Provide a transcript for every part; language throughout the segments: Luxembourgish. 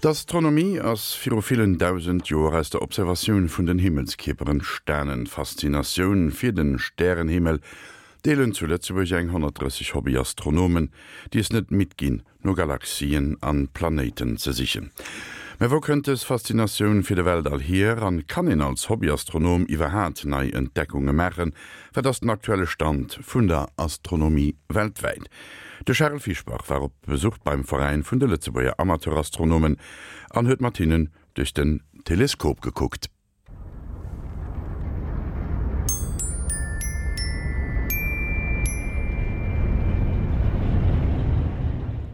D'Astronomie ass viru villen 1.000 Joer aus der Observatioun vun den Himmelskierper entstanen. D'Faszinatioun fir de Stärenhimmel deelen zu Lëtzebuerg eng 130 Hobbyastronomen, déi es net midd ginn, no Galaxien an Planéiten ze sichen. Mä wou kënnt dës Faszinatioun fir de Weltall hier an kann een als Hobbyastronom iwwerhaat nei Entdeckunge maachen? Wat ass den aktuelle Stand vun der Astronomie weltwäit? De Charel Fischbach war op Besuch beim Veräin vun de Lëtzebuerger Amateurastronomen an huet mat hinnen duerch den Teleskop gekuckt.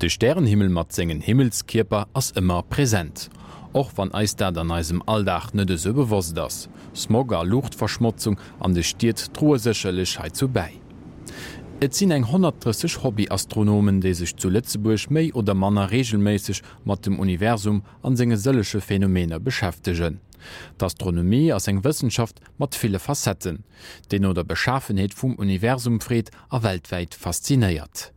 De Stärenhimmel mat sengen Himmelskierper ass ëmmer present, och wann eis dat an eisem Alldag net esou bewosst ass. Smog a Luuchtverschmotzung an de Stied droe sécherlech heizou bäi. Et sinn eng 130 Hobbyastronomen, déi sech zu Lëtzebuerg méi oder manner reegelméisseg mat dem Universum an senge sëllege Phänomener beschäftegen. D'Astronomie ass eng Wëssenschaft mat ville Facetten, déi no der Beschafenheet vum Universum freet a weltwäit faszinéiert.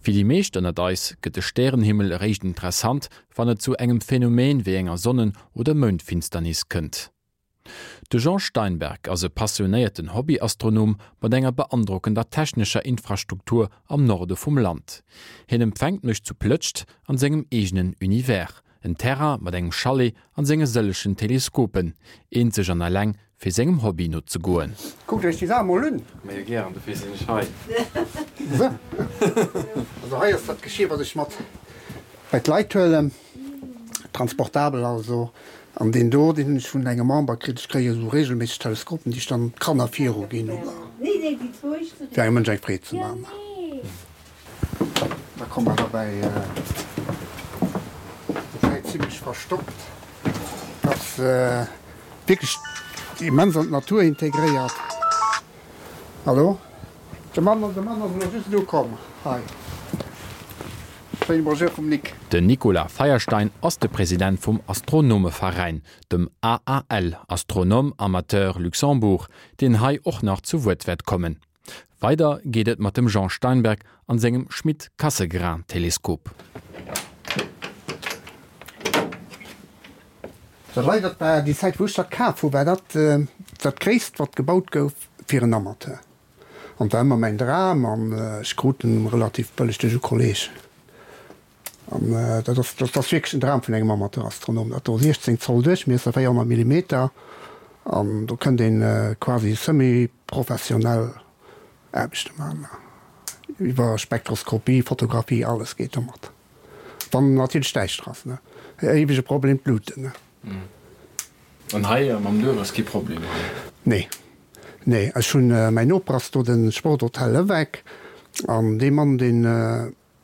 Fir déi meescht ënnert eis gëtt de Stärenhimmel eréischt interessant, wann et zu engem Phänomen wéi enger Sonnen oder Moundfinsternis kënnt. De Jean Steinberg ass e passionéierten Hobbyastronom mat enger beandrockender technescher Infrastruktur am Norde vum Land. Hien empfänkt mech zu Plëtscht an sengem eegenen Univers, en Terrain mat engem Chalet an senge sëllegen Teleskopen, eenzeg an eleng fir sengem Hobby nozegoen. Kuckt iech déi Saach mol un! Majo gären, dofir sinn ech hei. Sou, also hei ass dat Geschir wat ech mat bei d'Leit huelen, transportabel also. An deen do, deen hunn ech vun engem Member kritt. Ech kréie sou regelméisseg Teleskopen, déi ech dann d'Kanner viru ginn oder fir engem Mënsch eng Freed ze man. Da komme mer derbäi, dat zimlech verstoppt ass. Wierklech immens an d'Natur integréiert. Hallo? De Mann, de Mann ass elo just elo komm hei. Schéine Bonjour vum Nic. Den Nicolas Feierstein ass de President vum Astronomeveräin, dem AAL, Astronomes Amateurs Luxembourg, deen hei och nach zu Wuert wäert kommen. Weider geet et mat dem Jean Steinberg an sengem Schmidt-Cassegrain-Teleskop. Dat hei, dat war déi Zäit wou ech dat kaf hu, war dat dat gréisst wat gebaut gouf fir en Amateur. An et war ëmmer mäin Dram an ech krut en relativ bëlleg duerch e Kolleg. An dat ass, dat ass wierklech den Dram vun engem Amateurastronom. Dat do 16 Zoll Duerchmiesser, 400 Millimeter an do kënnt een quasi semi-professionell Aarbechte maachen. Iwwer Spektroskopie, Fotografie, alles geet domat. Wann natierlech däischter ass, ne. Éiwege Problem, d'Luuten, ne. An hei mam Duerf ass kee Problem, oder? Nee, nee. Ech hunn, mäin Noper ass do de Sporthotel Lewek an dee Mann, deen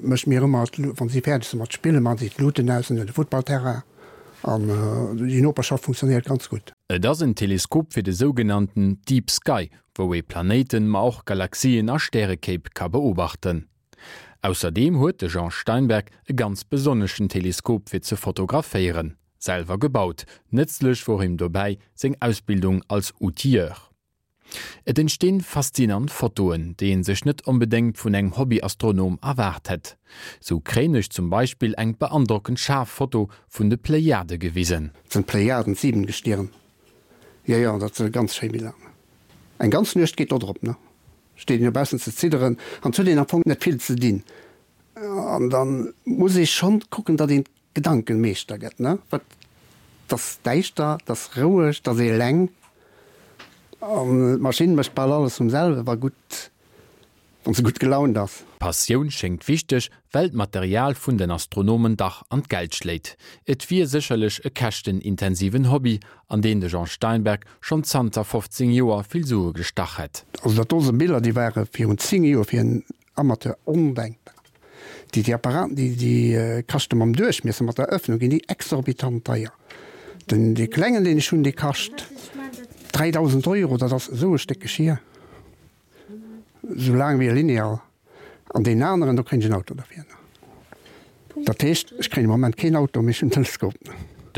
mécht mir ëmmer, wann si fäerdeg sinn mat spillen, maachen si d'Luuten aus an de Futtballterrain an déi Noperschaft funktionéiert ganz gutt. Et ass en Teleskop fir de sougenannten Deep Sky, wou ee Planéiten, ma och Galaxien a Stärekéip ka beobachten. Ausserdeem huet de Jean Steinberg e ganz besonneschen Teleskop fir ze fotograféieren, selwer gebaut. Nëtzlech wor him dobäi seng Ausbildung als Outilleur. Et entstinn faszinant Fotoen, déi een sech net onbedéngt vun engem Hobbyastronom erwaart hätt. Sou kréien ech zum Beispill eng beandrockend schaarf Foto vun de Plejade gewisen. Dat sinn d'Plejaden, d'Siebengestirn. Jo, jo, dat si ganz schéi Biller. Eng ganz Nuecht geet do drop, ne? Steet een dobaussen ze zidderen an et huet een am Fong net vill ze dinn. An da muss ee schonn kucken, datt een d'Gedanken Meeschter gëtt, ne? Wat, 't ass däischter, 't ass roueg, 't ass ee eleng an d'Maschinn mécht bal alles vum selwe, wa gutt, wann se gutt gelaunt ass. D'Passioun schéngt wichteg, well d'Material vun den Astronomen dach an d'Geld schléit. Et wier sécherlech e käschtenintensiven Hobby, an deen de Jean Steinberg schonn zanter 15 Joer vill Sue gestach hätt. Also dat do sinn Biller, déi ware virun 10 Joer fir en Amateur ondenkbar. Déi déi Apparaten, déi déi kaschte mam Duerchmiesser, mat der Ëffnung ginn déi exorbitant deier. Den dee klengen deen ech hunn, dee kascht 3.000 Euro, dat ass esou e Stéck Geschir, esou laang wéi e Lineal. An deen aneren, do kréien ech en Auto derfir. Dat heescht, ech kréien am Moment keen Auto, mee ech hunn en Teleskop.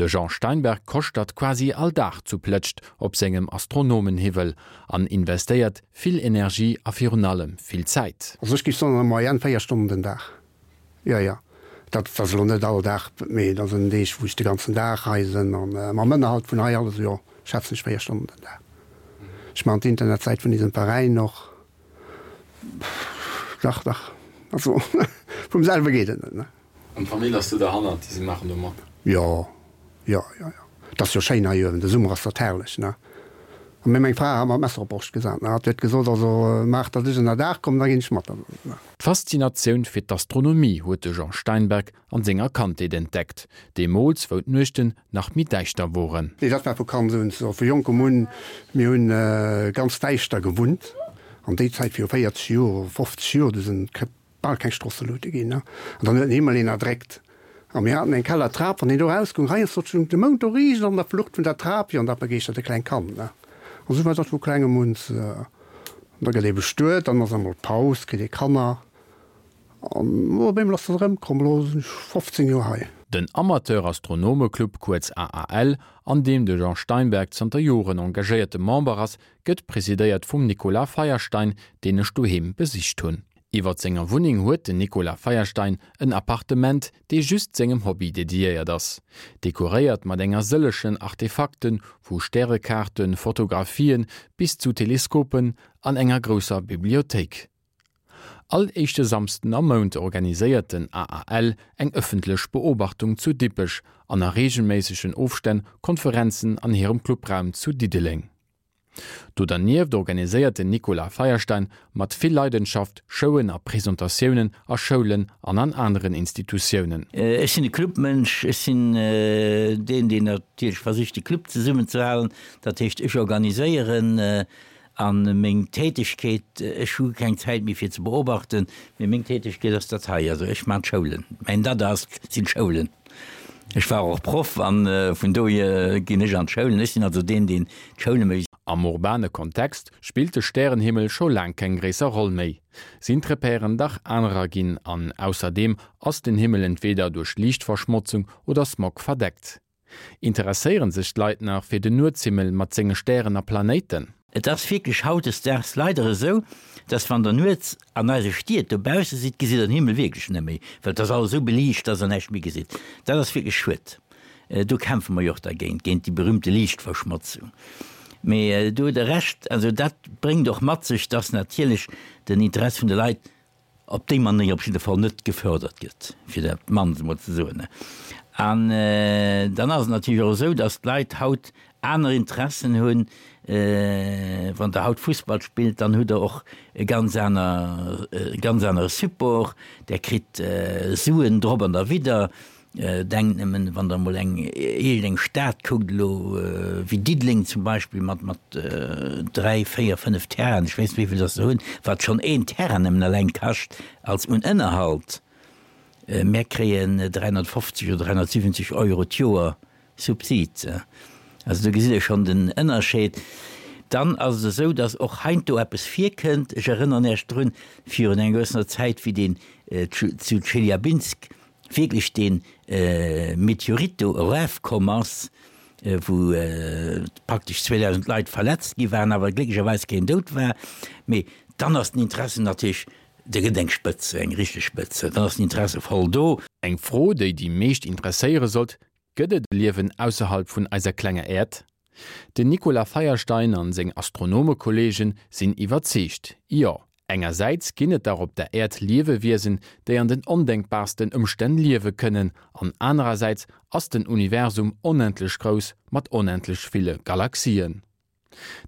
De Jean Steinberg koschtert quasi all Dag zu Plëtscht op sengem Astronomenhiwwel an investéiert vill Energie a virun allem vill Zäit. Also ech géif soen an der Moyenne 4 Stonnen den Dag. Jo, jo. Dat ass elo net all Dag, mee dat sinn Deeg, wou ech de ganzen Dag hei sinn. An mam Ënnerhalt vun hei alles, jo, schätzen ech 4 Stonnen den Dag. Ech maachen d'Internetsäit vun eisem Veräin och. Dach, dach, also vum selwe geet et net, ne? An d'Famill ass do derhannert, déi si maachen do mat? Jo, jo, jo, jo. Et ass jo schéin hei uewen, de Summer ass dat herrlech, ne? A mir, meng Fra hat mer d'Messer op d'Broscht gesat, ne? Hatt huet gesot, also maach, datt ech ënnerdaach kommen, da ginn ech mat. D'Faszinatioun fir d'Astronomie huet de Jean Steinberg an senger Kandheet entdeckt, deemools wou d'Nuechten nach méi däischter woren. Nee, dat war vu Kand un esou, vu jonkem un. Mir hunn ganz däischter gewunnt an déi Zäit viru 40 Joer, 50 Joer, du sinn bal keng Strosseluute ginn, an dann huet den Himmel een erdréckt. A mir haten eng Kellertrap, wann een do erausgoung, heiansdo stung de Mound do riicht an der Flucht vun der Trap, jo, an dat begeeschtert e klengt Kand, ne. An esou war dat vu klengem un. An da gëtt ee bestuet, dann ass emol Paus, kritt ee Kanner, an op eemol ass dat erëmkomm. Elo sinn ech 15 Joer hei. Den Amateur-Astronomeclub, kuerz AAL, an deem de Jean Steinberg zanter Joren engagéierte Member ass, gëtt presidéiert vum Nicolas Feierstein, deen ech doheem besicht hunn. Iwwert senger Wunneng huet den Nicolas Feierstein en Appartement, dee just sengem Hobby dediéiert ass. Dekoréiert mat enger sëllechen Artefakten, vu Stärekaarten, Fotografien bis zu Teleskopen an enger grousser Bibliothéik. All éischte Samsden am Mount organiséiert den AAL eng ëffentlech Beobachtung zu Dippech an a reegelméissegen Ofstänn Konferenzen an hirem Clubraum zu Diddeleng. Do dernieft organiséiert den Nicolas Feierstein mat vill Leidenschaft Showen a Presentatiounen a Schoulen an an aneren Institutiounen. Ech sinn e Clubmënsch. Ech sinn deen, deen natierlech versicht, de Club zesummenzehalen. Dat heescht, ech organiséieren a meng Tätegkeet, ech hu keng Zäit méi fir ze beobachten, mee meng Tätegkeet ass dat hei. Also ech maachen d'Schoulen. Mäin Dada ass, sinn d'Schoulen. Ech war och Proff an vun dohier ginn ech an d'Schoulen. Ech sinn also deen, deen d'Schoule mécht. Am urbane Kontext spillt de Stärenhimmel scho laang keng gréisser Roll méi. Sinn d'Repèren dach anerer ginn an ausserdeem ass den Himmel entweder duerch Liichtverschmotzung oder Smog verdeckt. Interesséieren sech d'Leit nach fir den Nuetshimmel mat senge Stären a Planéiten? Et ass wierklech hautdesdaags leider esou, dass wann der nuets an eise Stied dobausse sidd, gesitt der den Himmel wierklech net méi, well et ass alles esou beliicht, dass der näischt méi gesitt. Dat ass wierklech schued. Do kämpfe mer jo och dergéint, géint déi berühmte Liichtverschmotzung. Mee do hutt Der Recht, also dat bréngt och mat sech, dass natierlech den Interesse vun de Leit op déi Manéier op jidde Fall net gefördert gëtt, fir dat mannst emol ze soen. An dann ass et natierlech och esou, datt d'Leit haut aner Interessen hunn. Wann Der haut Fussball spillt, dann hutt Der och e ganz aner, e ganz anere Support. Der kritt Suen drop an derwidder. Denkt nëmmen, wann Der emol eng iergendeng Stad kuckt elo, wéi Diddeleng zum Beispill, mat mat dräi, véier, fënnef Terrainen, ech weess net, wéi vill datt se hunn, wat schonn een Terrain nëmmen eleng kascht als un Ënnerhalt. Mär kréien 350 oder 370 Euro d'Joer Subsid. Also do gesitt Der schonn den Ënnerscheed. Dann ass et esou, datt och heiansdo eppes virkënnt. Ech erënneren Iech drun, virun enger gewëssener Zäit, wéi deen zu Tscheljabinsk wierklech dee Meteorit do erafkomm ass, wou praktesch 2.000 Leit verletzt gi waren, awer glécklecherweis keen dout war. Mee dann ass den Interesse natierlech, da gëtt eng Spëtz, eng richteg Spëtz, dann ass den Interesse voll do. Eng Fro, déi déi meescht interesséiere sollt, Gëtt et e Liewen ausserhalb vun eiser klenger Äerd? Den Nicolas Feierstein an seng Astronomekolleegen sinn iwwerzeegt, Jo! Engersäits ginn et dach op der Äerd Liewewiesen, déi an den ondenkbarsten Ëmstänn liewe kënnen, an anerersäits ass den Universum onendlech grouss mat onendlech ville Galaxien.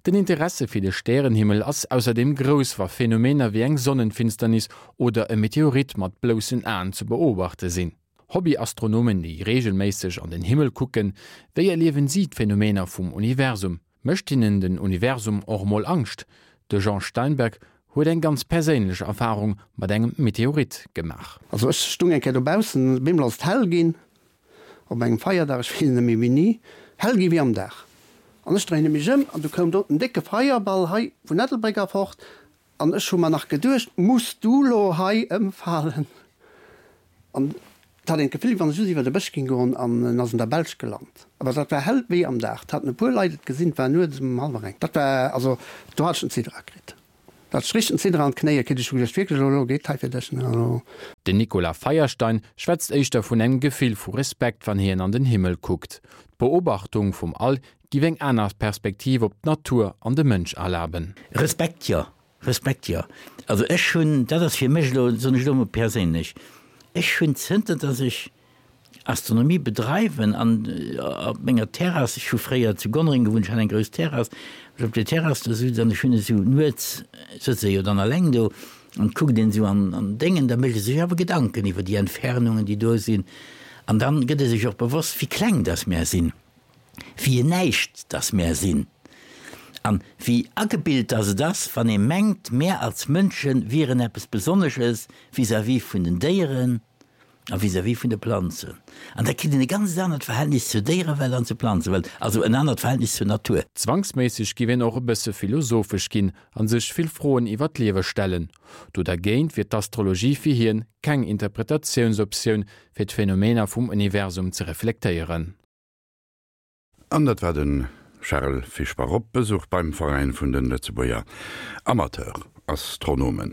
Den Interesse fir de Stärenhimmel ass ausserdeem grouss, wa Phänomener wéi eng Sonnenfinsternis oder e Meteorit mat bloussen Aen ze beobachte sinn. Hobbyastronomen, déi reegelméisseg an den Himmel kucken, wéi erliewen si d'Phänomener vum Universum? Mécht hinnen den Universum och mol Angscht? De Jean Steinberg huet eng ganz perséinlech Erfarung mat engem Meteorit gemaach. Also ech stung eng Kéier dobaussen, op eemol ass et hell ginn, op engem Feierdag, ech weess net méi wéini, hell gi wéi am Dag. An ech dréine mech ëm an du koum do en décke Feierball hei vun Ettelbréck erfort an ech hu mer nach geduecht, muss du lo hei ëmfalen? An et hat een d'Gefill, wéi wann e just iwwer de Bësch géing goen an en ass an der Belsch gelant. Awer dat war hell wéi am Dag. Et haten e puer Leit et gesinn, et war nuets um hallwer eng. Dat war, also do hat ech den Zidder akritt. Dat ech richteg den Zidder an d'Knéie kritt. Ech hu geduecht, wierklech, elo geet hei fir dech, elo. Den Nicolas Feierstein schwätzt éischter vun engem Gefill vu Respekt, wann hien an den Himmel kuckt. D'Beobachtung vum All giff eng aner Perspektiv op d'Natur an de Mënsch erlaben. Respekt, jo. Respekt, jo. Also ech hunn, dat ass fir mech elo, soen ech elo emol perséinlech, ech hunn zënter datt ech Astronomie bedreiwen an op menger Terrass, ech hu fréier zu Gonnereng gewunnt, ech hat eng grouss Terrass, ech op der Terrass do sutz an ech hunn esou nuets, sëtz ee jo dann alleng do an kuckt een esou an an Déngen, da mécht ee sech awer Gedanken iwwer déi Entfernungen, déi do sinn an dann gëtt ee sech och bewosst, wéi kleng datt mär sinn. Wéi en Näischt dass mär sinn. An wéi agebilt dass et ass, wann ee mengt, mär als Mënsche wieren eppes Besonnesches vis-à-vis vun den Déieren a vis-à-vis vun de Planzen. An da kritt een e ganz anert Verhältnis zur Déierewelt an zur Planzewelt, also en anert Verhältnis zur Natur. Zwangsméisseg giff een och e bësse philosophesch ginn a sech vill Froen iwwer d'Liewe stellen. Do dergéint wier d'Astrologie fir hien keng Interpretatiounsoptioun, fir d'Phänomener vum Universum ze reflektéieren. An dat war de Charel Fischbach op Besuch beim Veräin vun de Lëtzebuerger Amateur-Astronomen.